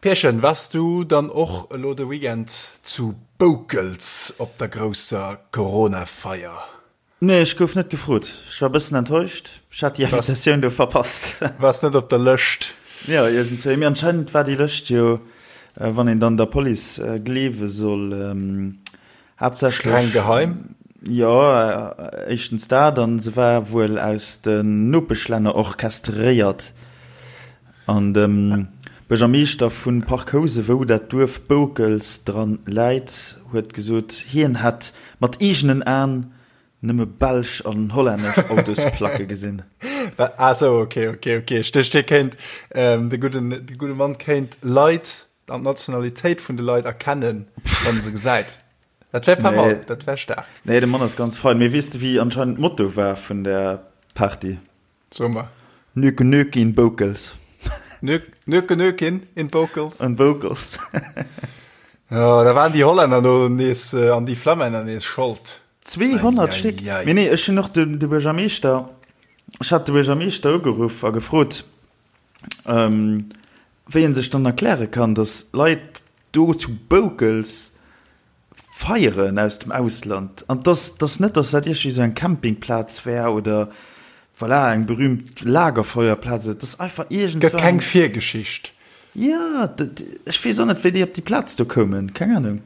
Pierchen, wars du dann och elo de Weekend zu Boukels op der grousser Corona-Feier? Nee, ech gouf net gefrot. Ech war bëssen enttäuscht. Ech hat déi Invitatioun do verpasst. Wars net op der Lëscht? Jo, iergendswéi. Mee anscheinend war déi Lëscht jo, wann een dann der Police gleewe soll, Haaptsächlech. Streng geheim? Jo, éischtens dat, an se war wuel aus den Nopeschlänner orchestréiert. An de Buergermeeschter vu Parc Housen, wou dat Duerf Boukels dran läit, huet gesot, hien hätt mat eegenen Aen nëmme belsch an hollännesch Autosplacke gesinn. Ah sou, ok, ok, ok. Ech duecht, hie kéint, de gudden, de gudde Mann kéint Leit an d'Nationalitéit vun de Leit erkennen, wann en se gesäit. Dat wär pas mal, dat wär staark. Nee, de Mann ass ganz fein. Mee weess de, wéi anscheinend d'Motto war vun der Party? So mer. Nöke Nöke in Boukels. Nöke Nöke in Boukels. In Boukels. Jo, da waren déi Hollänner do nees an déi Flammänner nees Schold. 200 Stéck! Mee nee, ech hunn och de Buergermeeschter, ech hat de Buergermeeschter ugeruff a gefrot, wéi en sech dann erkläre kann, datt Leit do zu Boukels feieren aus dem Ausland an dass dass net, dass dat iergendwéi esou eng Campingplaz wär oder voilà eng berühmt Lagerfeuerplaz, et ass einfach iergendwann. Gëtt keng Virgeschicht. Jo, ech weess och net, wéi déi op déi Plaz do koumen, keng Ahnung.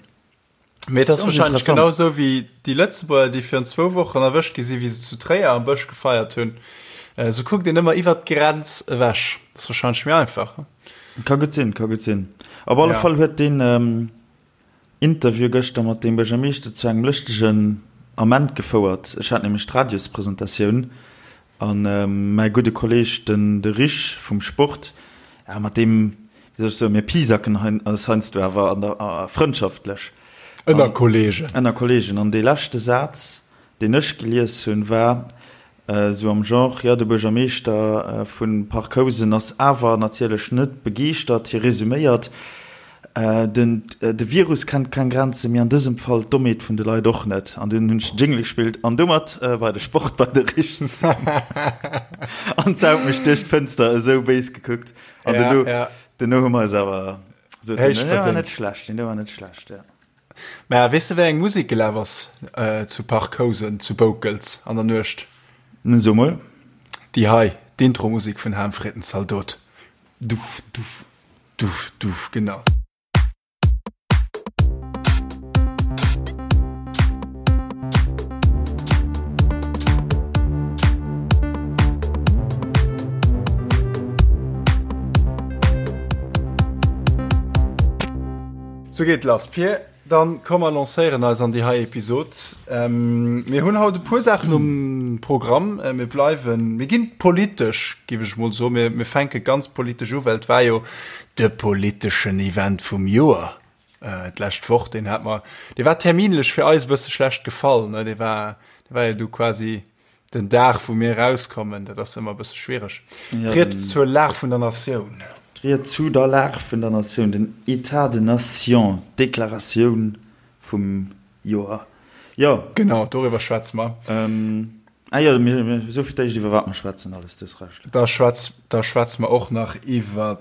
Mee et ass wahrscheinlech genau esou wéi déi Lëtzebuerger, déi virun zwou Wochen erwëscht gi sinn, wéi se zu Tréier am Bësch gefeiert hunn. Esou kuckt een ëmmer iwwert d'Grenz ewech. Dat ass wahrscheinlech méi einfach. Ka gutt sinn, ka gutt sinn. Op alle Fall huet deen Interview gëschter mat deem Buergermeeschter zu engem lëschtegen Ament gefouert. Ech hat nämlech d'Radiospresentatioun a mäi gudde Kolleeg, den de Rich vum Sport, ja mat deem, wéi soll ech soen, mir pisacken eis heiansdo awer an der frëndschaftlech. Ënner Kolleegen. Ënner Kolleegen. An dee leschte Saz, deen ech gelies hunn, war Esou am Genre, jo, de Buergermeeschter vu Parc Housen ass awer natierlech net begeeschtert. Hie resuméiert, Den de Virus kennt keng Grenzen, mee an dësem Fall d'Dommheet vun de Leit och net. An dunn hunn ech den Jingle gespillt an domat war de Sport bei de Richts. An d'Sau huet mech duerch d'Fënster esou béis gekuckt. An duerno, duerno hu mer eis awer esou, deen war net schlecht, deen war net schlecht, jo. Mä weess de wéi eng Musek gelaf ass zu Parc Housen zu Boukels an der Nuecht? So mol. Déi hei, d'Intro-Musek vun Ham freet den Zaldot. Duff, duff, duff, duff, genau. Sou geet lass Pir, dann komm mer lancéieren eis an déi hei Episod. Mir hunn haut e puer Saachen um Programm. Mir bleiwen, mir ginn politesch, géif ech mol soen. Mir, mir fänke ganz politesch u, well et war jo de politeschen Event vum Joer d'lescht Woch. Deen hat mer, dee war terminlech fir eis e bësse schlecht gefall, ne? Dee war, dee war jo du quasi Den Dag, wou mir erauskommen, dat ass ëmmer e bësse schwiereg. D'Ried zur Lag vun der Natioun. D'Ried zu der Lag vun der Natioun, den État de nation, d'Deklaratioun vum Joer. Jo. Genau, doriwwer schwätze mer. Ah jo, mir soe fir d'éischt, iwwer wat mer schwätzen, alles dës Recht. Da schwätz, da schwätze mer och nach iwwer,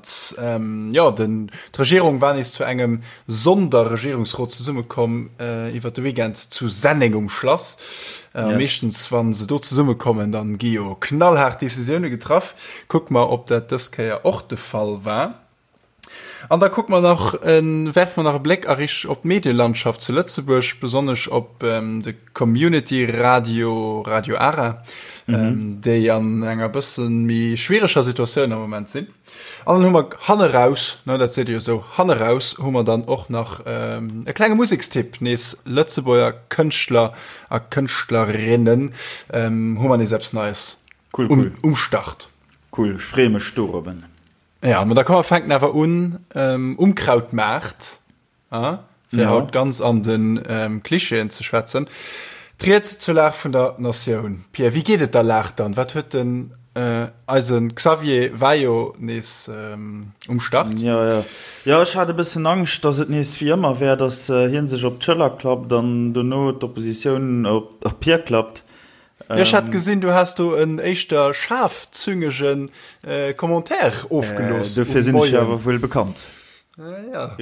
jo, den, d'Regierung war nees zu engem Sonderregierungsrot zesummekomm iwwer de Weekend zu Senneng um Schlass. Yes. Meeschtens wann se do zesummekommen, dann gi jo knallhaart Decisioune getraff. Kucke mer, ob dat dës Kéier och de Fall war. An da kucke mer nach, werfe mer nach e Bléck a Rich op d'Medielandschaft zu Lëtzebuerg, besonnesch op de Community Radio, Radio Ara, mhm. déi an enger bëssen méi schwiereger Situatioun am Moment sinn. An dann hu mer hanneraus, ne, dat seet ee jo esou, hanneraus hu mer dann och nach e klenge Musekstipp, nees Lëtzebuerger Kënschtler a Kënschtlerinnen, hu mer nees eppes Neies cool, cool. um Start. Cool, ech freeë mech dorobben. Ja, ma da komm mer fänken awer un um Krautmaart. Ah, fir ja. haut ganz an den ähm, Klischeeën ze schwätzen. D'Ried zur Lag vun der Natioun. Pierre, wéi geet et der Lag dann? Wat huet den äh, eisen Xavier war jo nees ähm, um Start? Ja, ja. Ja, ech hat e bëssen Angscht, dass et nees wéi ëmmer wär, dass äh, hien sech op d'Schëller klappt an dono d'Oppositioun op, op hie klappt. Ähm, ja, ech hat gesinn, du has do en éischter schaarfzüngegen äh, Commentaire ofgelooss. Äh, dofir sinn ech awer wuel bekannt. Ja.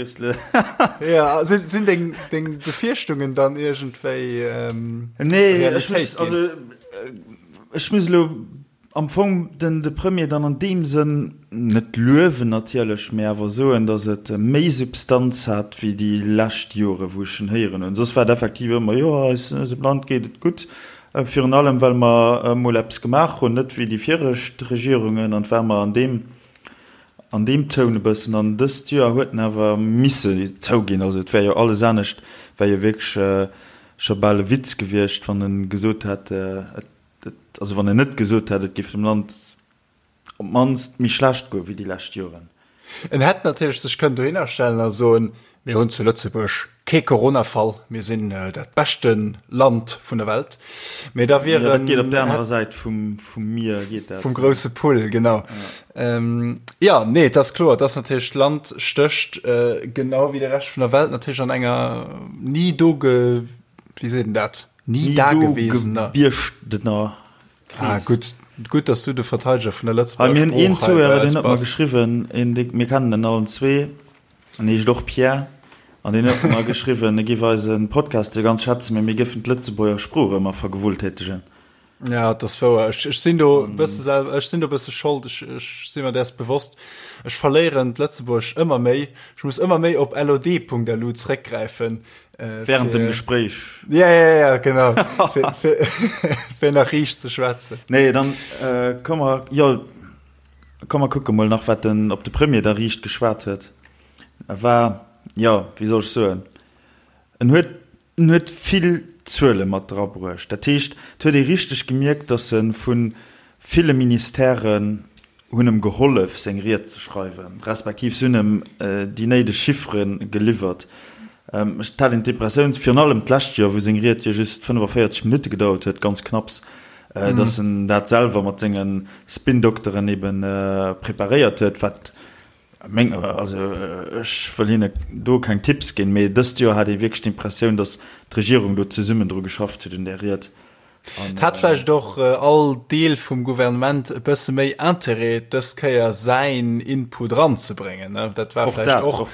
Ja, sinn, sinn deng, deng Befierchtungen dann iergendwéi ähm, Nee, ech muss, also, äh, ech muss elo am Fong den, de Premier dann an deem Sënn net luewen natierlech, mee awer soen, datt et méi Substanz hat wéi déi lescht Jore wou ech en héieren hunn. Soss war et effektiv ëmmer, jo, eis, eisem Land geet et gutt, virun allem well mer emol eppes gemaach hunn, net wéi déi viregt Regierungen, an et war mer an deem An deem Toun e bëssen. An dëst Joer huet en awer misse zouginn, also et wär jo alles anescht wär jo wierklech scho bal e Witz gewiescht, wann e gesot hätt, et, also wann en net gesot hätt, et géif dem Land op d'mannst méi schlecht goe wéi déi lescht Joren. En hätt natierlech sech kënnen dohinner stellen a soen, Mir hunn zu Lëtzebuerg kee Coronafall, mir sinn dat beschte Land vun der Welt. Mee da wier en. Ja, dat geet op der anerer Säit vum, vum Mier geet dat. Vum grousse Pull, genau. Ja, ähm, ja nee, et ass kloer, et ass natierlech, d'Land stécht äh, genau wéi de Rescht vun der Welt natierlech an enger ni do ge, wéi seet en dat? Ni, ni dagewesener. Gewieschter Kris. Ah, gutt, gutt, dass du de Verteideger vun der Lëtzebuerger Sprooch hei bei eis bass. Mir hunn een Zuhörer, deen huet mer geschriwwen, een, dee, mir kennen en allen zwee. En heescht och Pierre an deen huet mer geschriwwen, e giff eise Podcast jo ganz schätzen, mee mir géifen d'Lëtzebuerger Sprooch ëmmer vergewulltätegen. Ja, et ass wouer. Ech, ech sinn do e bësse selwer, ech sinn do e bësse schold, ech, ech si mer däers bewosst. Ech verléieren d'Lëtzebuergescht ëmmer méi. Ech muss ëmmer méi op lod.lu zréckgräifen. Äh, Während dem Gespréich. Ja, ja, ja, genau. fir, fir, fir nach riicht ze schwätzen. Nee, dann äh, komm mer, jo. Komm mer kucke mol nach wat den op de Premier da riicht geschwat huet. E war, jo, wéi soll ech soen, en huet, en huet vill Zuele mat drabruecht. Dat heescht, et huet ee richteg gemierkt, datt e vu ville Ministèren hunn em gehollef seng Ried ze schreiwen, respektiv se hunn em déi néideg Chiffere geliwwert. Ech hat een d'Impressioun, virun allem d'lescht Joer, wou seng Ried jo just 45 Minutte gedauert huet, ganz knapps, dass en dat selwer mat senge Spin-Dokteren ebe preparéiert huet, wat meng, also ech wëll hinne do keng Tipps ginn, mee dëst Joer hat ee wierklech d'Impressioun, dass d'Regierung do zesummen dru geschafft huet un där Ried. Et hat vläicht och all Deel vum Gouvernement e bësse méi Interêt, dës Kéier säin Input eranzebréngen. Dat war vläicht och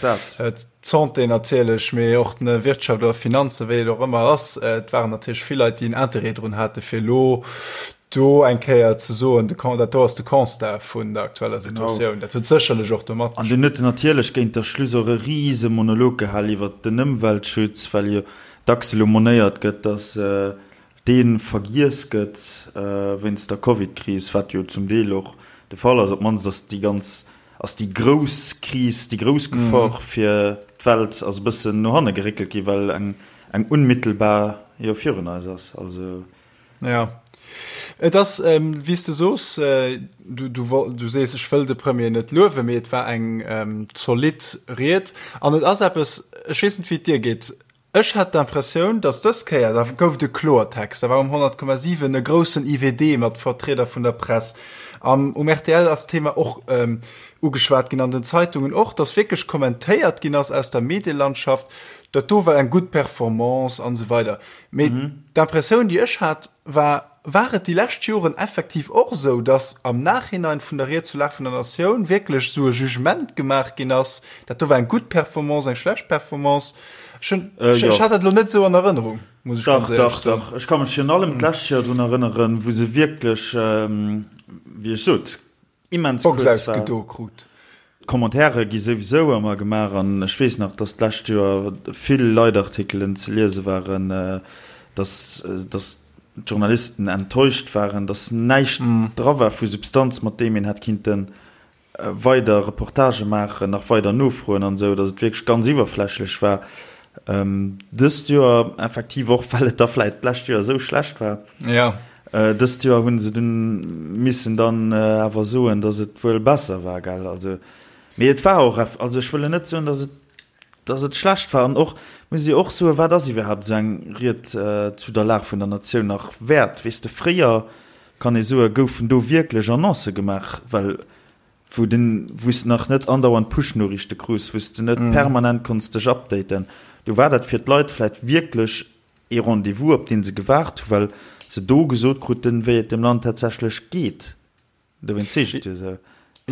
d'Santé natierlech, mee och d'Wirtschaft oder Finanzen, wéi et och ëmmer ass. Et waren natierlech vill Leit, déi en Interêt drun hate fir elo do eng Kéier ze soen, dat do ass de Constat vun der aktueller Situatioun. Dat huet sécherlech och do matgespillt. An dunn huet en natierlech géint der Schluss och e rise Monolog gehal iwwert den Ëmweltschutz, well jo dacks elo monéiert gëtt, datt dee vergiess gëtt wéinst der Covid-Kris, wat jo zum Deel och de Fall ass, op d'mannst ass déi ganz, ass déi grouss Kris, déi grouss Gefor fir d'Welt ass e bëssen no hanne geréckelt ginn, well eng, eng unmittelbar jo virun eis ass. Also. Jo, et ass, wéi s de soos, du, du, du sees, ech wëll de Premier net luewen, mee et war eng zolidd Ried an et ass eppes, ech weess net, wéi et dir geet, Ech hat d'Impressioun, datt dës Kéier, da gouf et e Kloertext, da war um 100,7 e groussen IWD mat Vertrieder vun der Press, am um rtl ass d'Thema och ugeschwat ginn, an den Zeitungen och, datt wierklech kommentéiert ginn ass aus der Medielandschaft, dat do war eng gutt Performance an esou weider. Mee d'Impressioun, déi ech hat, war, War et déi lescht Joren effektiv och esou, datt am Nachhinein vun der Ried zur Lag vun der Natioun wierklech esou e Jugement gemaach ginn ass, dat do war eng gutt Performance, eng schlecht Performance? Ech hunn, ech, ech hat dat elo net esou an Erënnerung, muss ech ganz éierlech soen. Dach, dach, dach. Ech ka mech virun allem d'lescht Joer drun erënneren, wou se wierklech, wéi ech sot, immens kuerz war. Ausgedo krut. D'Commentairen gi souwisou ëmmer gemaach an ech weess nach, dass d'lescht Joer vill Leitartikelen ze liese waren, dass, dass d'Journalisten enttäuscht waren, dass näischt dra war vu Substanz, mat deem een hätt kinnte weider Reportagë maachen, nach weider nofroen an esou, dass et wierklech ganz iwwerflächlech war. Dëst Joer effektiv och, well et da vläicht d'lescht Joer esou schlecht war. Ja. Dëst Joer hunn se dunn missen dann awer soen, datt et wuel besser war, gell? Also, mee et war och, also ech wëll net soen, datt et, datt et schlecht war. An och muss ee och soen, wat ass iwwerhaapt esou eng Ried zu der Lag vun der Natioun nach wäert? Weess de, fréier, kann ee soen, goufen do wierklech Annoncë gemaach, well wou den, wou s de nach net andauernd Push-Noriichte krus, wou s de net permanent konns dech updaten, do war dat fir d'Leit vläicht wierklech ee Rendez-vous, op dee se gewaart hu well se do gesot kruten, wéi et dem Land tatsächlech geet. Dowéinst seet ech et jo esou.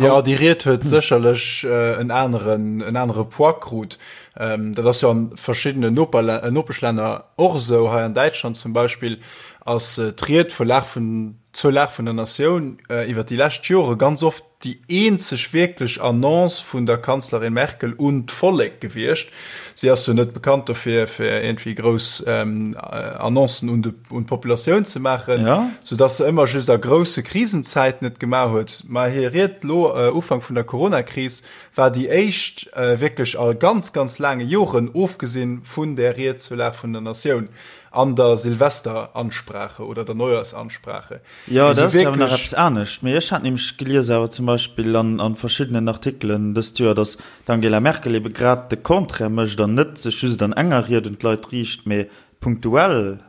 Jo, déi Ried huet sécherlech en aneren, en anere Poids krut. Dat ass jo an verschiddenen Nopeschlänner och esou. Hei an Däitschland zum Beispill ass d'Ried vun Lag vun, zur Lag vun der Natioun iwwer déi lescht Jore ganz oft déi eenzeg wierklech Annonce vun der Kanzlerin Merkel un d'Vollek gewiescht. Si ass jo net bekannt dofir, fir iergendwéi grouss Annoncen un de, un d'Populatioun ze maachen, ja. sou dass se ëmmer just a grousse Krisenzäiten et gemaach huet. Mä hir Ried lo Ufank vun der Coronakris war déi éischt wierklech a ganz, ganz laange Joren, ofgesinn vun där Ried zur Lag vun der Natioun an der Silvesteransprache oder der Neujahrsansprache. Jo, dat ass awer nach eppes anescht. Mee ech hat nämlech gelies awer zum Beispill an a verschiddenen Artikelen dëst Joer, datt d'Angela Merkel ebe grad de Contraire mécht an net sech just an enger Ried un d'Leit riicht, mee punktuell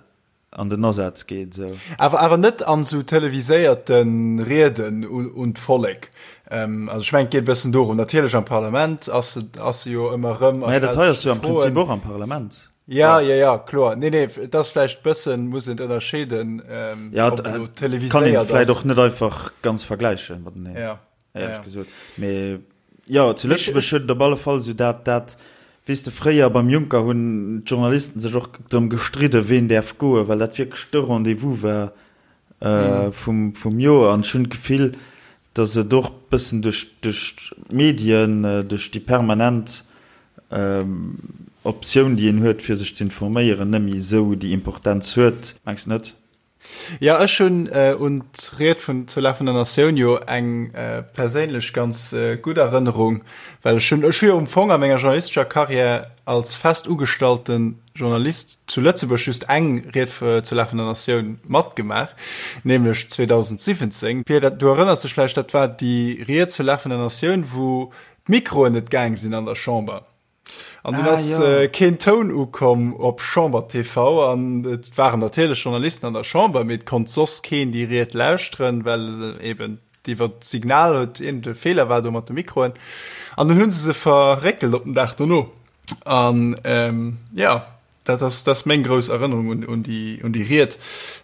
an den Asaz geet esou. Awer awer net an esou televiséierte Rieden un d'Vollek. Also ech mengen et geet e bëssen dorëm. Natierlech am Parlament ass se ass se jo ëmmer erëm a Mä dat hei ass jo am Prinzip och am Parlament. Ja, ja, ja, kloer. Nee, nee, et ass vläicht bëssen, muss een ënnerscheeden, Ja, ob elo kann een televiséiert vläicht ass. och net einfach ganz vergläichen mateneen, Ja, ja, éierlech ja. gesot. Mee Jo, zu Lëtzebuerg huet et op alle Fall esou dat, dat, weess de, fréier beim Juncker hunn d'Journalisten sech och drëm gestridden, ween däerf goen, well dat wierklech de Rendez-vous war vum, vum Joer. An ech hunn d'Gefill, datt et och bëssen duerch, duerch d'Medien, duerch déi permanent Optioun, déi een huet, fir sech z'informéieren, net méi esou déi Importenz huet. Mengs de net? Jo, ech hunn un d'Ried vun zur Lag vun der Natioun jo eng perséinlech ganz gutt Erënnerung, well ech hunn, ech hu jo am Fong a menger journalistescher Carrière als fest ugestallte Journalist zu Lëtzebuerg just eng Ried zur Lag vun der Natioun matgemaach, nämlech 2017. Pia, du erënners dech vläicht, dat war déi Ried zur Lag vun der Natioun, wou d'Mikroen net gaang sinn an der Chamber. An dunn ass keen Toun ukomm op Chamber TV an et waren natierlech Journalisten an der Chamber, mee et konnt soss keen déi Ried lauschteren, well eben iwwer d'Signal huet iergend e Feeler war do mat de Mikroen. An dunn hu se se verréckelt op den Dag dono. An jo, dat ass, dat ass meng grouss Erënnerung un, un déi, un déi Ried.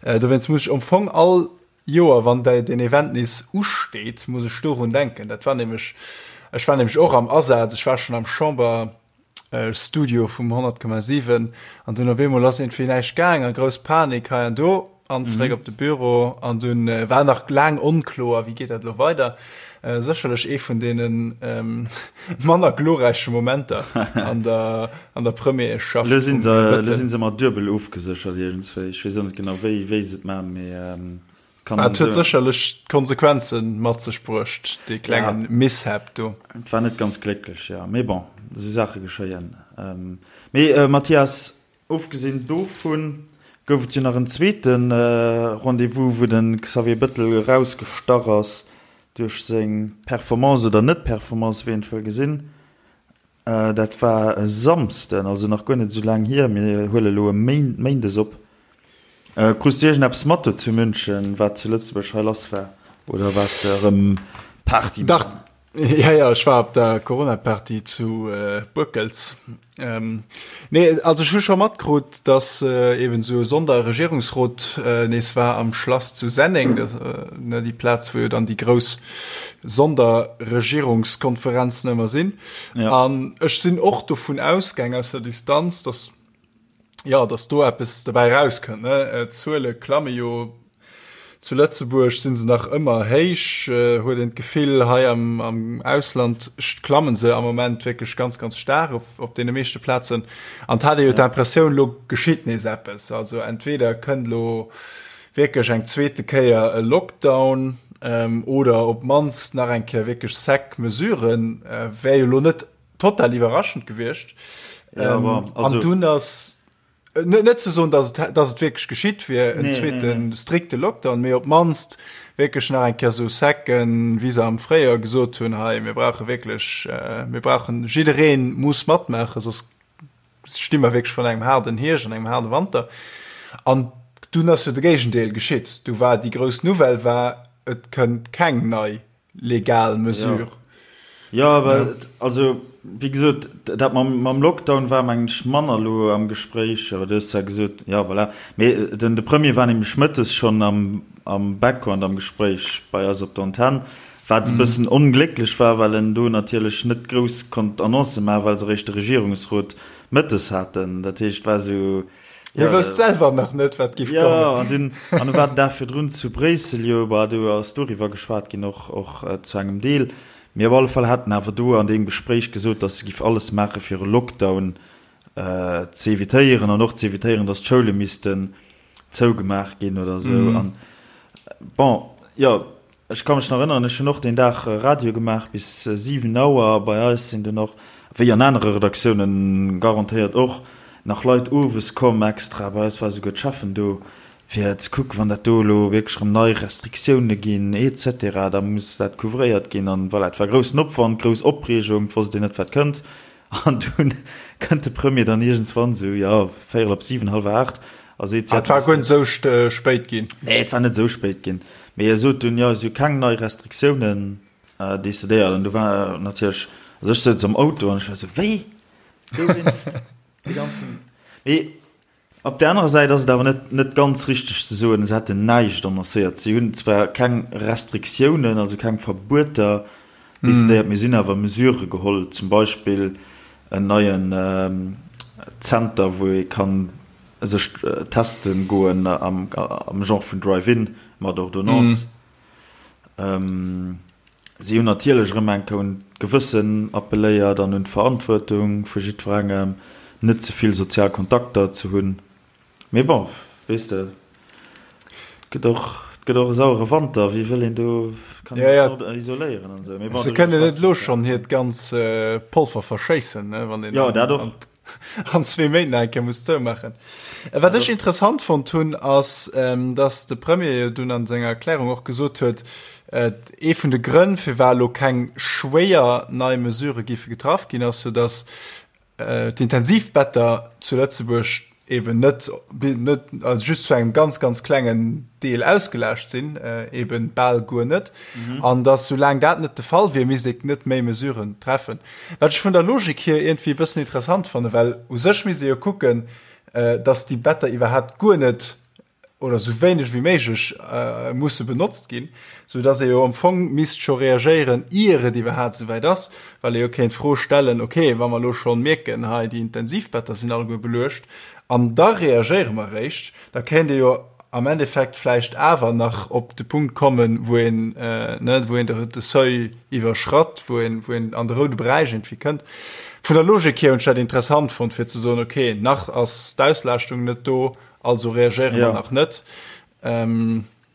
Dowéinst muss ech am Fong all Joer, wann deen Event nees usteet, muss ech dorun denken. Dat war nämlech, ech war nämlech och am Asaz, ech war schonn am Chamberstudio vum 100,7 an dunn op eemol ass iergendwéi näischt gaang a grouss Panik hei an do an zeréck op de Büro an dunn war nach laang onkloer, wéi geet dat elo weider. Sécherlech ee vun deene manner glorräiche Momenter an der, an der Premierschaft Elo sinn se, elo sinn se mat duebel ofgeséchert iergendswéi. Ech weess och net genau wéi, wéi se et maachen, mee kann Et huet sécherlech Konsequenze mat sech bruecht, dee klenge Mishap do. Et war net ganz glécklech, jo. Mee bon, esou Saache geschéien. Mee Mathias, Ofgesinn dovun gouf et jo nach en zweete Rendez-vous, wou de Xavier Bettel erausgestach ass duerch seng Performance oder Net-Performance, wéi een et wëll gesinn. Dat war e Samsden, also nach guer net esou laang hier. Mir huele elo e Méindes op. Krus du iergendeppes mat do zu München, wat zu Lëtzebuerg hei lass war? Oder waars de erëm Party maachen? Dach, ja, ja, ech war op der Corona-Party zu Boekels. Nee, also ech hu scho matkrut, dass eben esou e Sonderregierungsrot nees war am Schlass zu Senneng, dat, ne, déi Plaz, wou jo dann déi grouss Sonderregierungskonferenzen ëmmer sinn. An ech sinn och dovun ausgaang aus der Distanz, dass jo, dass do eppes dobäi erauskënnt, ne. D'Zuele klamme jo Zu Lëtzebuerg sinn se nach ëmmer héich, huet een d'Gefill. Hei am, am Ausland klammen se am Moment wierklech ganz, ganz staark op, op deene meeschte Plazen. An et hat ee jo d'Impressioun, lo geschitt nees eppes. Also entweder kënnt lo wierklech eng zweete Kéier e Lockdown oder op d'mannst nach eng Kéier wierklech sec Mesuren. Wär jo lo net total iwwerraschend gewiescht. An dunn ass Net ze soen, dass et, dass et wierklech geschitt wier, en zweete strikte Lockdown, mee op d'mannst wierklech nach eng Kéier esou Secken, wéi se am Fréijoer gesot hunn, hei mir brauche wierklech, mir brauchen, jidderee muss matmaachen, soss sti mer wierklech virun engem haarden Hierscht an engem haarde Wanter. An dunn ass jo de Géigendeel geschitt. Du war déi grouss Nouvelle war, et kënnt keng nei legal Mesure. Jo, awer also wéi gesot, dat mam Lockdown war mengen ech manner elo am Gespréich, awer du hues zwar gesot, jo voilà, mee den de Premier war nämlech mëttes schonn am am Background am Gespréich bei eis op der Antenn. Wat e bëssen onglécklech war, well en do natierlech net grouss konnt Annoncë maachen, well se eréischt de Regierungsrot mëttes haten. Dat heescht, et war esou, Hie jo, wousst selwer nach net, wat giff kommen. Jo, an dunn, an e war den Dag virdrun zu Bréissel, jo, bah, do ass doriwwer geschwat ginn, och, och zu engem Deel. Mee op alle Fall hat en awer do an deem Gespréich gesot, datt se giff alles maache fir e Lockdown ze evitéieren an och ze evitéieren, datt d'Schoule missten zougemaach ginn oder esou. An bon, jo, ech ka mech nach erënneren, ech hunn och deen Dag Radio gemaach bis 7 Auer. Bei eis sinn dunn och, wéi an anere Redaktiounen garantéiert och, nach Leit owes komm extra. Bei eis war esouguer d'Cheffen do, fir ze kucken, wann dat do elo wierklech erëm nei Restriktioune ginn et cetera, da muss dat couvréiert ginn. An voilà, et war groussen Opwand, grouss Opreegung, et wosst een net, wat kënnt. An dunn kënnt de Premier dann iergendswann esou, jo, véierel op siwen, hallwer aacht, a seet, Ah, et war guer net esou spéit ginn. Nee, et war net esou spéit ginn. Mee e sot dunn, jo, et si keng nei Restriktiounen decidéiert. An du war natierlech, also ech souz am Auto an ech war esou, wéi? Dowéinst dee ganzen. Mee Op där anerer Säit ass et awer net net ganz richteg ze soen, se hätten näischt annoncéiert. Si hunn zwar keng Restriktiounen, also keng Verbueter decidéiert, mee si hunn awer Mesurë geholl, zum Beispill en neien Zenter, wou ee ka sech teste goen am Genre vun Drive-in mat Ordonnance. Si hunn natierlech erëm eng Kéier un d'Gewëssen appelléiert an un d'Verantwuertung vu jiddwerengem, net ze vill sozial Kontakter ze hunn. Mee bon, weess de, et gëtt och, et gëtt och e sauere Wanter, wéi wëll een do, kann een sech net isoléieren an esou. Mee bon, se kënnen net elo schonn hiert ganz Polver verschéissen, ne, wann een. Jo, dat och. an zwee Méint nach eng Kéier muss zoumaachen. Wat ech interessant fonnt hunn, ass, dass de Premier jo dunn an senger Erklärung och gesot huet, ee vun de Grënn, firwat elo keng schwéier nei Mesurë géife getraff ginn, ass jo, dass d'Intensivbetter zu Lëtzebuerg eben net, net, also just zu engem ganz, ganz klengen Deel ausgelaascht sinn, eben bal guer net, an dass soulaang dat net de Fall wier, misst ee net méi Mesuren treffen. Wat ech vun der Logik hier iergendwéi e bëssen interessant fannen, well u sech misst ee jo kucken, dass déi Better iwwerhaapt guer net oder esou wéineg wéi méiglech musse benotzt ginn, sou dass ee jo am Fong misst scho reagéieren, ier et iwwerhaapt esouwäit ass, well ee jo kéint d'Fro stellen, okay, wa mer elo schonn mierken, hei déi Intensivbetter sinn alleguer beluecht an da reagéiere mer eréischt, da kéint ee jo am Endeffekt vläicht awer nach op de Punkt kommen, wou een, ne, wou een de Seuil iwwerschratt, wou een, wou een an de roude Beräich irgendwie kënnt. Vun der Logik hier hunn ech dat interessant fonnt, fir ze soen, okay, nach ass d'Auslaaschtung net do, also reagéiere mer nach net.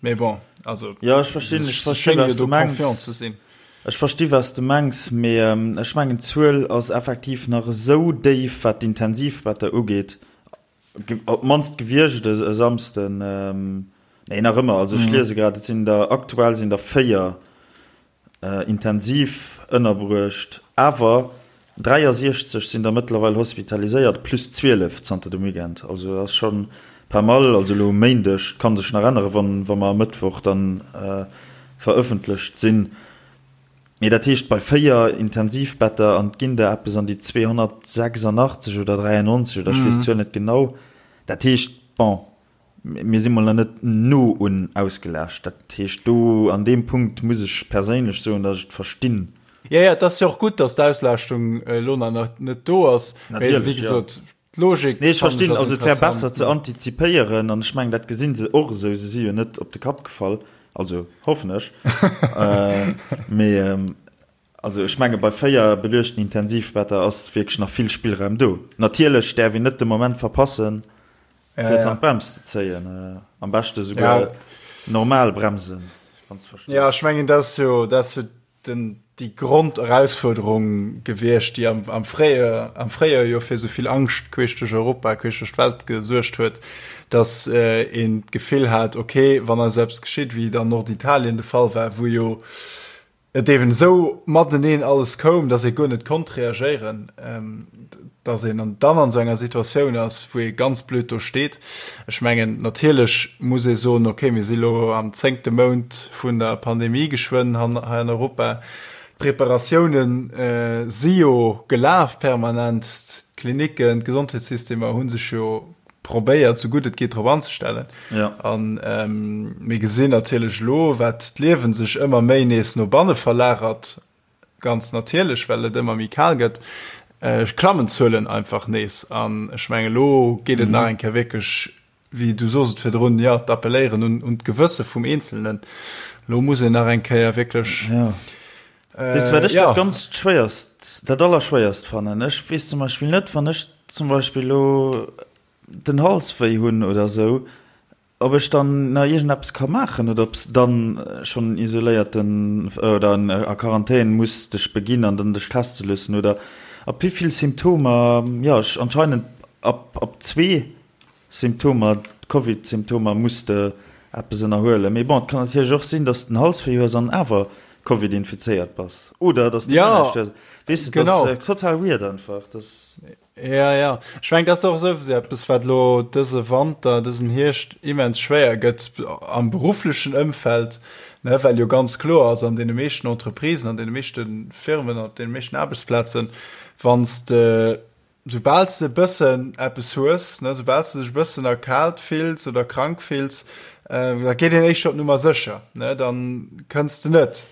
Mee bon, also jo, ech verstinn, ech verstinn, was du mengs. Ze sinn. Ech versti was du mengs, mee ech mengen d'Zuel ass effektiv nach esou déif, wat d'Intensivbetter ugeet, Op d'mannst gewiescht e Samsden. Nee, nach ëmmer. Also ech liese grad, et sinn der, aktuell sinn der 4 intensiv ënnerbruecht, awer 63 sinn der mëttlerweil hospitaliséiert, plus 12 zanter dem Weekend. Also dat ass scho pas mal. Also elo um Méindeg, kann sech nach änneren, wann wa mer e Mëttwoch dann verëffentlecht sinn. Mee dat heescht, bei 4 Intensivbetter, an et ginn der eppes an déi 286 oder 93 oder ech weess d'Zuel net genau, dat heescht, bon, mir si mol nach net no un ausgelaascht. Dat heescht, do an deem Punkt muss ech perséinlech soen, datt ech et verstinn. Jo, jo, et ass jo och gutt, datt d'Auslaaschtung elo nach net do ass. Mee wéi gesot, D'Logik Nee, ech verstinn, also et wär besser ze antizipéieren an ech mengen, dat gesinn se och esou, se si jo net op de Kapp gefall, also hoffen ech. Mee also ech menge bei 4 beluechten Intensivbetter ass wierklech nach vill Spillraum do. Natierlech däerf een net de Moment verpassen, fir d'Handbrems ze zéien, am beschte souguer normal bremsen, wann s de verstees. Jo, ech mengen, dat ass jo, dat ass jo den, déi Gronderausfuerderung gewiescht, déi am, am Fréijoer, am Fréijoer jo fir esou vill Angscht queesch duerch Europa, queesch duerch d'Welt gesuergt huet, dass äh, een d'Gefill hat, okay, wann eis eppes geschitt, wéi et an Norditalien de Fall war, wou jo et eben esou mateneen alles koum, dass ee guer net konnt reagéieren, ähm, dass een an dann an esou enger Situatioun ass, wou ee ganz blöd do steet. Ech mengen, natierlech muss ee soen, okay, mir si lo am zéngte Mount vun der Pandemie geschwënn hei an Europa. D'Preparatioune si jo gelaf permanent. D'Klinicken, d'Gesondheetssystemer hu sech jo. probéiert, sou gutt et geet drop anzestellen. Ja. An ähm, mir gesinn natierlech elo, wat d'Liewen sech ëmmer méi nees no banne verlagert, ganz natierlech, well et ëmmer méi kal gëtt, äh, klammen d'Zuelen einfach nees. An ech mengen, elo geet et mhm. nach eng Kéier wierklech, wéi du soos et virdrun, ja, d'appelléieren un, un d'Gewësse vum Eenzelnen. Lo muss een nach eng Kéier wierklech. Ja. Äh, Weess du, wat ech ja. dat ganz schwéierst, dat allerschwéierst fannen? Ech weess zum Beispill net, wann ech zum Beispill lo den Hals wéi hunn oder sou, ob ech dann nach iergendeppes ka maachen oder ob s dann schonn isoléierten oder a Quarantän muss dech beginn an dann dech teste loossen oder ab wéi vill Symptomer, jo, ech anscheinend ab ab zwee Symptomer, Covid-Symptomer muss de eppes ënnerhuelen. Mee bon, et kann natierlech och sinn, dass de den Hals wéi hues an awer Covid infizéiert bass. Oder dass de Ja, guer näischt hues. Weess de, dat genau. ass total weird einfach. Das. Ja, ja. Ech mengen, dat ass och esou eppes, wat elo dëse Wanter, dësen Hierscht immens schwéier gëtt am berufflechen Ëmfeld, ne, well jo ganz kloer ass, an deene meeschten Entreprisen, an deene meeschte Firmen, op deene meeschten Aarbechtsplazen, wann s de Soubal s de e bëssen eppes hues, ne, soubal s de dech e bëssen erkaalt fills oder krank fills, da geet een éischter op Nummer sécher, ne, dann kënns de net.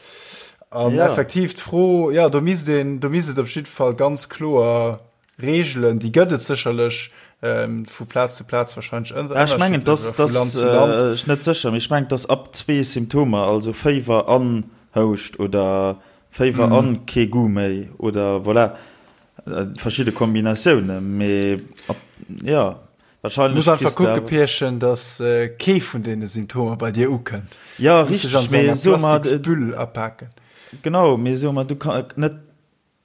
An Ja. effektiv d'Fro, jo, do misst een, do misst et op jidde Fall ganz kloer Reegelen, déi gëtt et sécherlech, vu Plaz zu Plaz wahrscheinlech ënner, Ja, ech mengen, ënnerschiddlech dass, oder vu dass, Land zu Land. ech net sécher, mee ech mengen, dass ab zwee Symptomer, also Féiwer an Houscht oder Féiwer an kee Goût méi oder voilà, Verschidde Kombinatiounen, mee jo, wahrscheinlech. Muss einfach kucke Pierchen, dass kee vun deene Symptomer bei dir ukënnt. Jo, richteg, mee soe mer. Plastiksbüll apaken. Genau, mee soe mer, du kann net,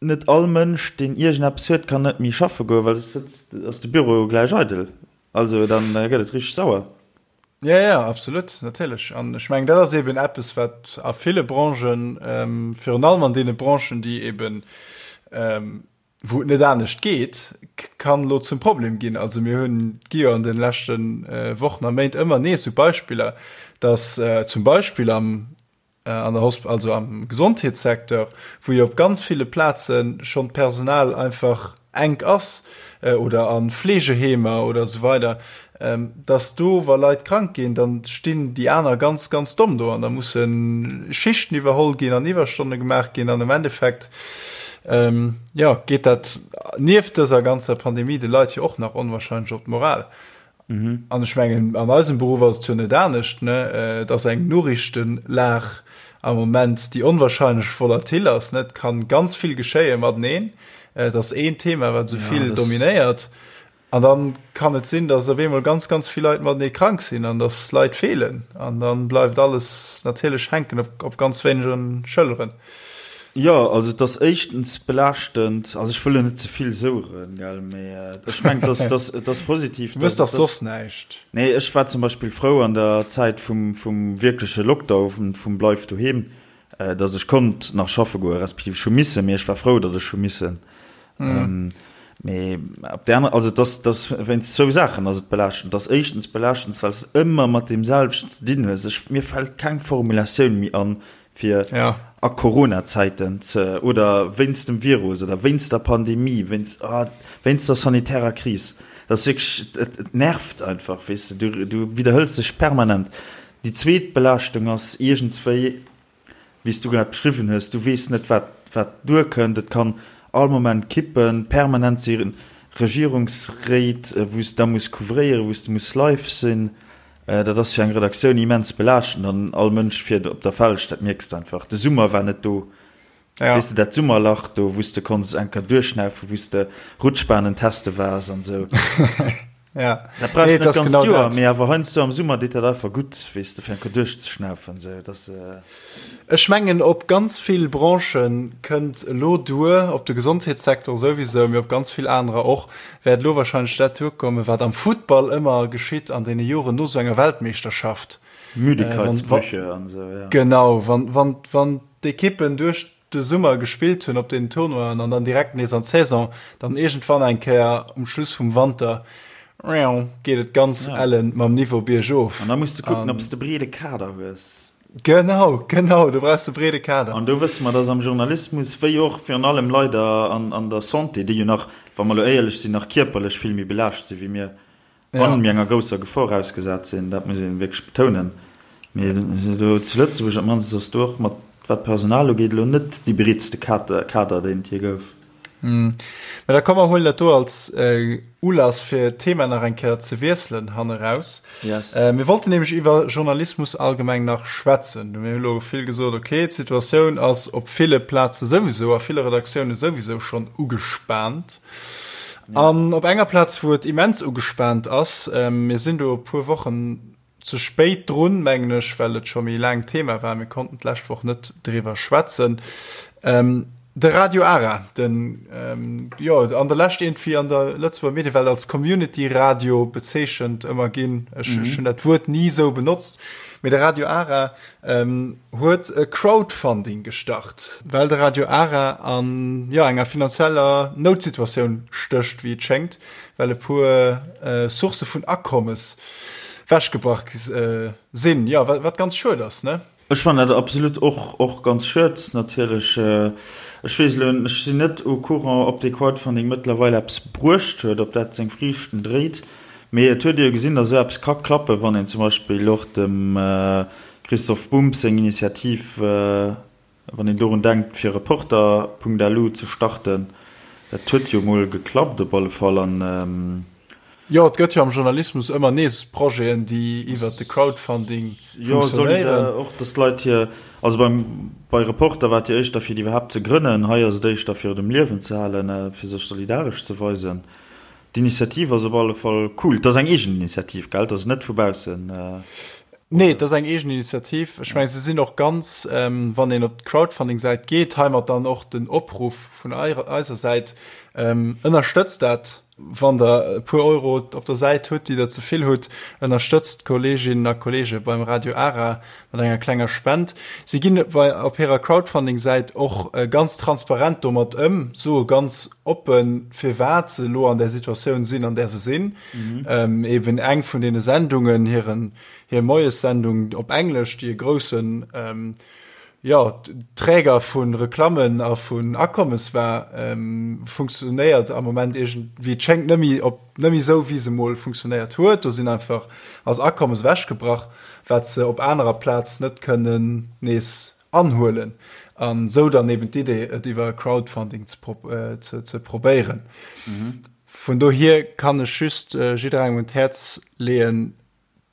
net all Mënsch, deen iergendeppes huet, kann net méi schaffe goen, well soss sëtzt, ass de Büro jo gläich eidel. Also dann gëtt et richteg sauer. Ja, ja, absolut, natierlech. An ech mengen, dat ass eben eppes, wat a ville Branchen, virun allem an deene Branchen, déi eben, wou et net anescht geet, kann elo zum Problem ginn. Also mir hunn, et gi jo an de leschte Wochen a Méint ëmmer nees esou Beispiller, datt zum Beispill am an der Hosp also am Gesondheetssecteur, wou jo op ganz ville Plaze schonn d'Personal einfach enk ass, oder a Fleegeheemer oder esou weider, dass do, wa Leit krank ginn, da stinn déi aner ganz, ganz domm do an da musse Schichten iwwerholl ginn an Iwwerstonne gemaach ginn an am Endeffekt, jo, geet dat nieft dëser ganzer Pandemie de Leit jo och nach onwahrscheinlech op d'Moral. An ech mengen, an eisem Beruff ass et jo net anescht, ne? Et ass eng Noriichtenlag am Moment, déi onwahrscheinlech volatil ass, ne? Et kann ganz vill geschéie mateneen. Et ass een Thema, wat esou vill dominéiert. An dann kann et sinn, dass op eemol ganz, ganz vill Leit matenee krank sinn an dass Leit feelen. An dann bleift alles natierlech hänken op, op ganz wéinegen Schëlleren. Jo, also et ass éischtens belaaschtend, also ech wëll elo net ze vill soueren, gell, mee ech mengen, et ass, et ass, et ass positiv, Du mëss dach soss näischt. Nee, ech war zum Beispill frou an der Zäit vum, vum wierkleche Lockdown, vum Bleif doheem, datt ech konnt nach schaffe goen, respektiv ech hu missen, mee ech war frou, datt ech hu missen. Mee op där aner, also et ass, et ass wéinst zwou Saachen ass et belaaschtend. Et ass éischtens belaaschtend, well s de ëmmer mat deem selwechten ze dinn hues. Ech, mir fält keng Formulatioun méi an, fir ja. a Corona-Zäiten ze oder wéinst dem Virus oder wéinst der Pandemie, wéinst, ah, wéinst der sanitärer Kris. Dat ass wierklech, et, et nervt einfach, weess de, du, du widderhëls dech permanent. Déi zweet Belaaschtung ass iergendswéi, wéi s du grad beschriwwen hues, du weess net, wat, wat duerkënnt, et kann all Moment kippen, permanent si Regierungsréit, wou s de da muss couvréieren, wou s de muss live sinn. Dat ass fir eng Redaktioun immens belaaschtend an all Mënsch fiert op der Felg, dat mierks de einfach. De Summer war net do. Ja. Weess de, dat Summerlach do, wou s de konns eng Kéier duerchschnaufen, wou s de Rutschbanen teste waars an esou. Ja. Dat brauchs Nee, de net et ass d'ganzt genau Joer, dat. mee awer heiansdo am Summer deet dat einfach gutt, weess de, fir eng Kéier duerchzeschnaufen esou. Dat ass. Ech mengen, op ganz vill Branchë kënnt elo duer, op de Gesondheetssecteur souwisou, mee op ganz vill anerer och, wäert elo wahrscheinlech dat duerkommen, wat am Futtball ëmmer geschitt an deene Joren no esou enger Weltmeeschterschaft. Müdigkeitsbrüche an esou, ja. Genau, wann, wann, wann d'Ekippen duerch de Summer gespillt hunn op deenen Tournoien an dann direkt nees an d'Saison, dann iergendwann eng Kéier um Schluss vum Wanter geet et ganz ellen mam Niveau biergof. An da muss de kucken, ob s de breede Kader hues. Genau, genau, do brauchs de breede Kader. An do wësse mer, dass am Journalismus, wéi och virun allem leider an, an der Santé, déi jo nach, wa mer elo éierlech sinn, nach kierperlech vill méi belaascht si wéi mir. An mir enger grousser Gefor ausgesat sinn, dat muss ee wierklech betounen. Mee do zu Lëtzebuerg op d'mannst ass do och mat, wat d'Personal ugeet, elo net dee breetste Kader, deen et jee gouf. Mä da komm mer huelen dat do als Ulass fir d'Thema nach eng Kéier ze wiesselen hanneraus. Yes. Mir wollten nämlech iwwer Journalismus allgemeng nach schwätzen. Mir hu lo vill gesot, okay, d'Situatioun ass op ville Plaze souwisou, a ville Redaktioune souwisou schonn ugespaant. An op enger Plaz, wou et immens ugespaant ass, mir sinn do e puer Wochen ze spéit drun, mengen ech, well et scho méi laang Thema war, mir konnten d'lescht Woch net driwwer schwätzen, de Radio Ara, den, jo, an der Lescht iergendwéi an der Lëtzebuerger Mediewelt als Community-Radio bezeechent ëmmer ginn, ech hunn dat Wuert ni esou benotzt, mee de Radio Ara huet e Crowdfunding gestart, well de Radio Ara an, jo, enger finanzieller Noutsituatioun stécht, wéi et schéngt, well e puer Sourcë vun Akommes wechgebrach sinn, jo, wat ganz schued ass, ne? Ech fannen dat absolut och och ganz schued, natierlech. Ech weess elo, ech sinn net au courant, ob dee Crowdfunding mëttlerweil eppes bruecht huet, ob dat seng Friichten dréit. Mee et huet ee jo gesinn, datt esou eppes ka klappen, wann een zum Beispill och dem Christoph Bumb seng Initiativ, wann een dorun denkt, fir Reporter.lu ze starten, dat huet jo mol geklappt op alle Fall. An. Jo, et gëtt jo am Journalismus ëmmer nees Projeten, déi iwwert de Crowdfunding funktionéieren. Jo, och datt d'Leit hir, also beim, bei Reporter war et jo éischter fir déi iwwerhaapt ze grënnen, hei ass et éischter fir et um Liewen ze halen, fir sech solidaresch ze weisen. D'Initiativ ass op alle Fall cool. Et ass eng eegen Initiativ, gell? Et ass net vu baussen. Nee, et ass eng eegen Initiativ. Ech mengen, se sinn och ganz, wann een op d'Crowdfunding-Säit geet, heimat dann och den Opruff vun eiser Säit, ënnerstëtzt dat, wann der e puer Euro op der Säit hutt, déi der ze vill hutt, ënnerstëtzt d'Kolleeginnen a Kolleege beim Radio Ara mat enger klenger Spend. Si ginn bei op hirer Crowdfunding-Säit och ganz transparent domat ëm, soe ganz oppen, firwat se elo an där Situatioun sinn, an där se sinn. Eben eng vun deene Sendungen, hiren, hir Moiessendung op Englesch, déi e groussen, jo, Träger vu Reklammen a vun Akommes war, funktionéiert am Moment iergend, wéi et schéngt, net méi op, net méi esou, wéi se mol funktionéiert huet. Do sinn einfach, ass Akommes ewechgebrach, wat se op anerer Plaz net kënnen nees anhuelen. An esou dann eben d'Idee, et iwwer Crowdfunding ze, ze probéieren. Vun dohier kann ech just jidderengem un d'Häerz leeën,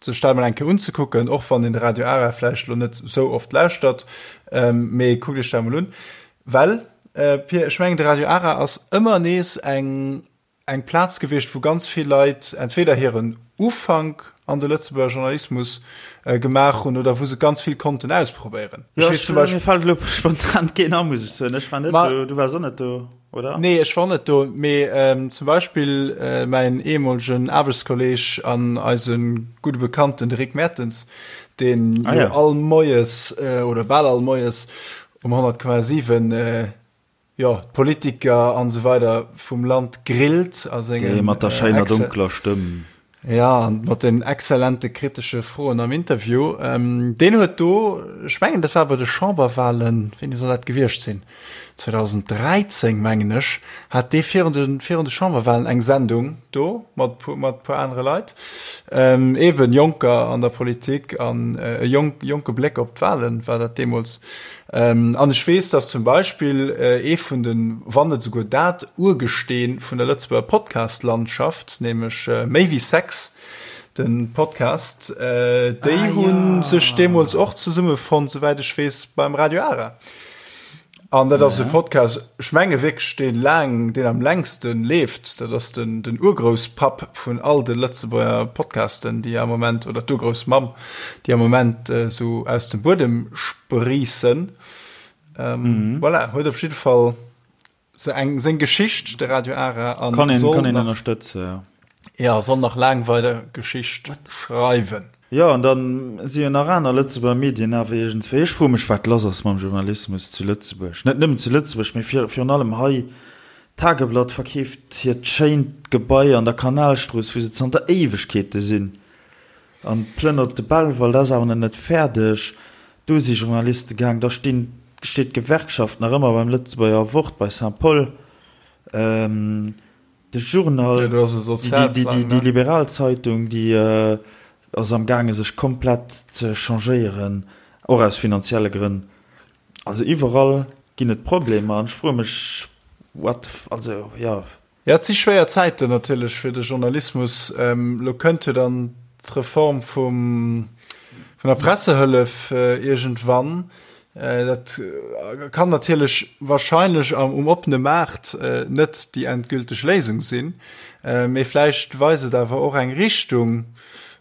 sech dat mol eng Kéier unzekucken, och wann een de Radio Ara vläicht elo net esou oft lauschtert, mee kuckt iech dat mol un, well, Pir, ech mengen de Radio Ara ass ëmmer nees eng eng Plaz gewiescht, wou ganz vill Leit entweder hiren Ufank an de Lëtzebuerger Journalismus gemaach hunn oder wou se ganz vill konnten ausprobéieren. Ech weess zum Beispill. Mir fält elo spontan keen an, muss ech soen. Ech war net do, du waars och net do. Oder? Nee, ech war net do, mee ähm, zum Beispill äh, mäin ehemolegen Aarbechtskolleg an eise gudde Bekannten, de Rick Mertens, deen ah, ja. all Moies äh, oder bal all Moies um 100,7 äh, ja, d'Politiker an so weider vum Land grillt a sengen, Dee mat der schéiner äh, dunkler Stëmm. Ja, an mat den exzellente kritesche Froen am Interview. Ähm, deen huet do, ech mengen, dat war bei de Chamberwahlen, wéini soll dat gewiescht sinn? 2013, mengen ech, hat dee virun de, virun de Chamberwahlen eng Sendung do mat puer, mat puer anere Leit. Ähm, eben Jonker an der Politik an äh, e jonk, jonke Bléck op d'Wahlen war dat deemools. An ech weess, dass zum Beispill ee vun den, wann net esouguer dat Urgesteen vun der Lëtzebuerger Podcast-Landschaft, nämlech Méi wéi Sex, de Podcast, déi hu sech deemools och zesummefonnt, souwäit ech weess, beim Radio Ara. An dat ass e Podcast, ech menge wierklech, dee laang, deen am längste leeft. Dat ass den, den Urgrousspapp vun all de Lëtzebuerger Podcasten, déi am Moment, oder d'Urgroussmamm, déi am Moment esou aus dem Buedem spriissen. Ähm, mhm. Voilà, huet op jidde Fall se eng seng Geschicht, de Radio Ara an kann een, kann een ënnerstëtze. Ja. ja, soll nach laang weider Geschicht schreiwen. Jo, an dann si jo nach aner Lëtzebuerger Medien awer iergendswéi. Ech froe mech, wat lass ass mam Journalismus zu Lëtzebuerg. Net nëmmen zu Lëtzebuerg, mee virun allem hei. D'Tageblatt verkeeft hiert schéint Gebai an der Kanalstrooss, wou se zanter Éiwegkeete sinn. An plënnert de Belval, dat ass awer nach net fäerdeg. Do si Journaliste gaang. Da stinn, steet d'Gewerkschaft nach ëmmer beim Lëtzebuerger Wort bei Saint-Paul. De Journal, déi liberal Zeitung, déi ass am gaange sech komplett ze changéieren, och aus finanzielle Grënn. Also iwwerall ginn et Problemer an ech froe mech, what, also jo. Jo, et si schwéier Zäiten natierlech fir de Journalismus. Elo kënnt jo dann d'Reform vum, vun der Pressehëllef iergendwann. Dat kann natierlech wahrscheinlech am, um oppene Maart net déi endgülteg Léisung sinn, mee vläicht weist et awer och eng Richtung,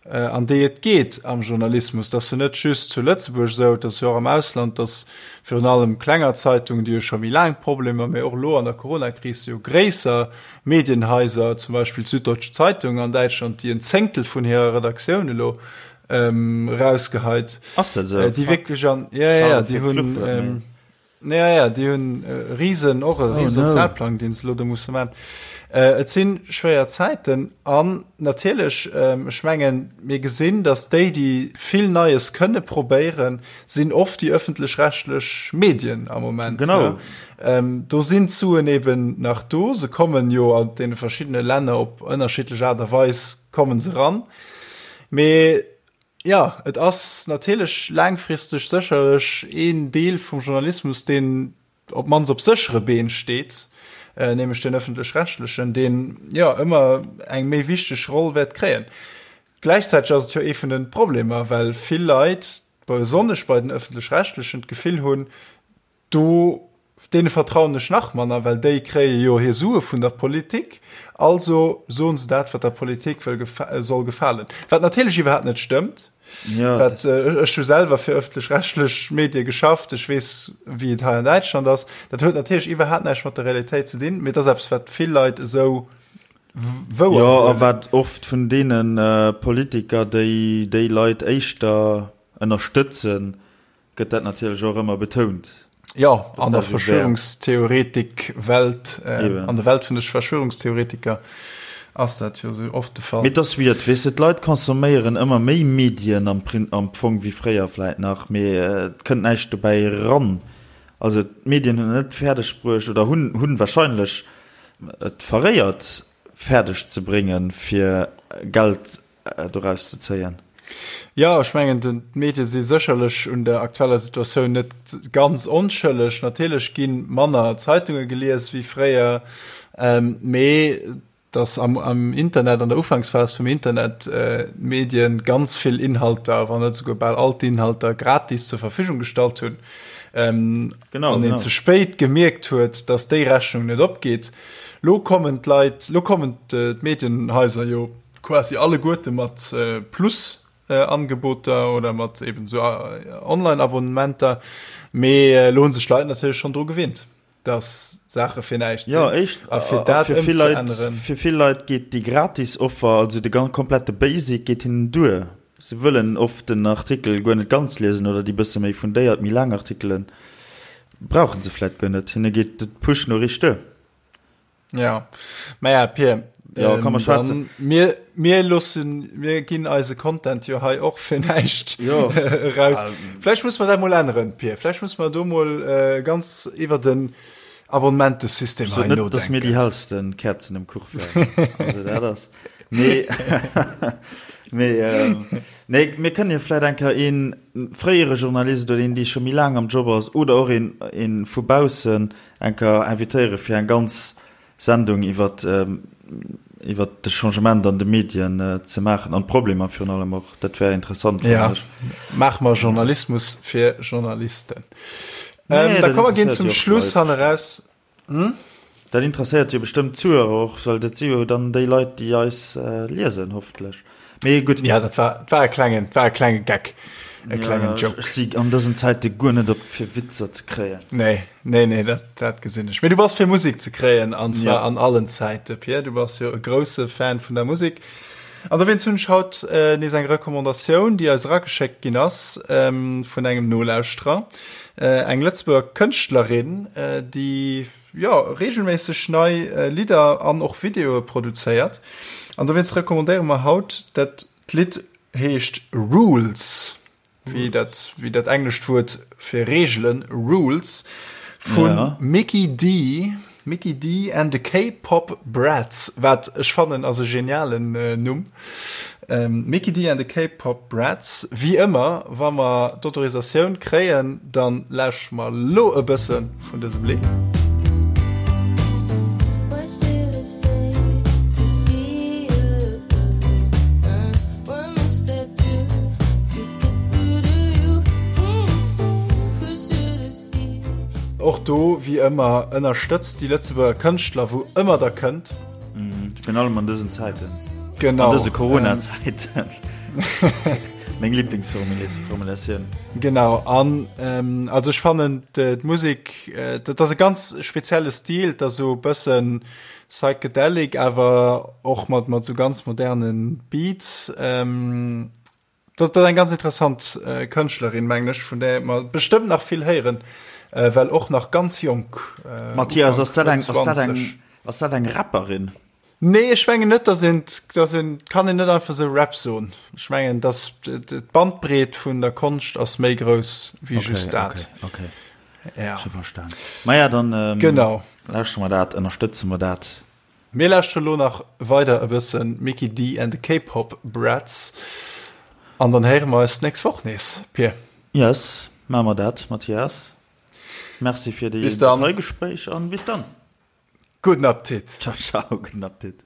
an déi et geet am Journalismus. Dat ass jo net just zu Lëtzebuerg esou, et ass jo och am Ausland, datt virun allem klenger Zeitungen, déi jo scho méi laang Problemer, mee och elo an der Coronakris jo gréisser Medienhaiser, zum Beispill d'Süddeutsche Zeitung an Däitschland, déi en Zéngtel vun hirer Redaktioun elo erausgeheit, déi wierklech an, jo, jo, déi hunn. Ja, ja, déi hunn e Risen, och e oh, riesen Sozialplang, deen se lo do musse man. Äh, et sinn schwéier Zäiten an natierlech, ähm, ech mengen, mir gesinn, dass déi, déi vill Neies kënne probéieren, sinn oft déi ëffentlech-rechtlech Medien am Moment. Genau. Ja. Ähm, do sinn d'Suen eben nach do, se kommen jo an deene verschiddene Länner op ënnerschiddlech Aart a Weis kommen se ran. Mee Jo, et ass natierlech laangfristeg sécherlech een Deel vum Journalismus, deen op d'mannst op séchere Been steet, nämlech deen ëffentlech-rechtlechen, deen, jo, ëmmer eng méi wichteg Roll wäert kréien. Gläichzäiteg ass et jo ee vun de Problemer, well vill Leit, besonnesch bei den ëffentlech-rechtlechen, d'Gefill hunn, Do, deene vertrauen ech nach manner, well déi kréie jo hir Sue vun der Politik, also soen se dat, wat der Politik wëll soll gefalen. Wat natierlech iwwerhaapt net stëmmt. Ja, wat, ech hu selwer fir ëffentlech-rechtlech Medie geschafft, ech weess, wéi et hei an Däitschland ass. Dat huet natierlech iwwerhaapt näischt mat der Realitéit ze dinn, mee et ass eppes, wat vill Leit esou wouer Jo, a wat oft vun deene Politiker, déi déi Leit éischter ënnerstëtzen, gëtt dat natierlech och ëmmer betount. Jo, an der Verschwörungstheoretik-Welt, an der Welt vun de Verschwörungstheoretiker ass dat jo sou oft de Fall. Mee et ass weird, weess de, d'Leit consomméieren ëmmer méi Medien am am Fong wéi fréier vläit nach, mee et kënnt näischt dobäi eran. Also d'Medien hunn et net fäerdeg bruecht oder hunn hunn wahrscheinlech et verréiert fäerdeg ze bréngen, fir Geld doraus ze zéien. Jo, ech mengen, d'Medie si sécherlech un der aktueller Situatioun net ganz onschëlleg. Natierlech gi manner Zeitunge gelies wéi fréier, mee datt am Internet, an der Ufanksphas vum Internet, d'Medien ganz vill Inhalter, wann net esouguer bal all d'Inhalter gratis zur Verfügung gestallt hunn, an een ze spéit gemierkt huet, datt déi Rechnung net opgeet. Lo kommen d'Leit, lo kommen d'Medienhaiser jo quasi alleguerte mat Plus-Angeboter oder mat eben esou Online-Abonnementer. Mee elo hu sech d'Leit natierlech schonn dru gewinnt, dass Saache fir näischt sinn. Jo, éischt, a fir dat ëmzeänneren. Fir vill Leit geet déi gratis Offer, also de komplette Basic, geet hinnen duer. Se wëllen oft den Artikel guer net ganz liesen oder déi bësse méi fundéiert, méi laang Artikele brauche se vläicht guer net. Hinne geet d'Push-Noriicht duer. Ja, maja Pier, ja, kann man schwätzen. Mir, mir loossen, mir ginn eise Content jo hei och fir näischt jo. raus. Vläicht muss man dat mol änneren, Pier. Vläicht muss man do mol äh, ganz iwwer den Abonnementesystem hei nodenken. Net, dass mir déi hellsten Kerzen um Kuch wären. Also dat ass. Nee, mee, ähm, nee, mir kënnen jo vläicht eng Kéier een fréiere Journalist oder een, dee scho méi laang am Job ass oder och een, een vu baussen eng Kéier invitéiere fir eng ganz Sendung iwwer iwwer de Changement an de Medien ze maachen an d'Problemer virun allem och. Dat wär interessant, fannen ech. Ja, maache mer Journalismus fir Journalisten. Nee, da komme mer ginn zum Schluss hanneraus. Hm? Dat interesséiert jo bestëmmt d'Zuhörer och, well dat si jo dann déi Leit, déi eis liesen, hoffentlech. Mee gutt. Ja, dat war, war e klengen, war e klenge Geck. E klengen ja, Joke. Ech si an dësen Zäite guer net op fir Witzer ze kréien. Nee, nee, nee, dat, dat gesinn ech. Mee du bass fir Musek ze kréien, an zwar ja. an allen Zäite, Pierre. Du bass jo e grousse Fan vun der Musek. An dowéinst hunn ech haut äh, nees eng Recommandatioun, déi eis erageschéckt ginn ass ähm, vun engem Nolauschterer. Äh, eng Lëtzebuerger Kënschtlerin, äh, déi jo, regelméisseg nei Lidder an och Videoe produzéiert. An dowéinst recommandéiere mer haut dat d'Lidd heescht Rules, wéi dat, wéi dat englescht Wuert fir Reegelen, Rules, vu Mikkey Dee. Mikkey Dee and the K-Pop Brats, wat ech fannen ass e genialen Numm. Mikkey Dee and the K-Pop Brats. Wéi ëmmer, wa mer d'Autorisatioun kréien, dann lauschtere mer lo e bësse vun dësem Lidd. Och do, wéi ëmmer, ënnerstëtzt déi Lëtzebuerger Kënschtler, wou ëmmer der kënnt. Virun allem an dësen Zäiten. Genau. An dëse Corona-Zäiten. Meng Liblingsformulatioun. Genau. An also ech fannen d'Musek, dat ass e ganz spezielle Stil, dat ass esou e bëssen psychedelic, awer och mat mat esou ganz moderne Beats. Dat ass eng ganz interessant Kënschtlerin, mengen ech, vun där mer bestëmmt nach vill héieren, well och nach ganz jonk. Mathias, ass dat eng, ass dat eng, ass dat eng Rapperin? Nee, ech mengen net, dass een, dass een, kann een net einfach esou Rap soen. Ech mengen, dass d'Bandbreet vun der Konscht ass méi grouss wéi just dat. Okay, okay. Ja. Scho verstan. Maja, dann genau. lauschtere mer dat, ënnerstëtze mer dat. Mir lauschteren elo nach weider e bëssen Mikkey Dee and the K-Pop Brats an dann héiere mer eis d'nächst Woch nees, Pir. Yes, maache mer dat, Mathias. Merci fir déi dat hei Gespréich an bis dann. Gudden Appetit. Ciao, ciao, gudden Appetit.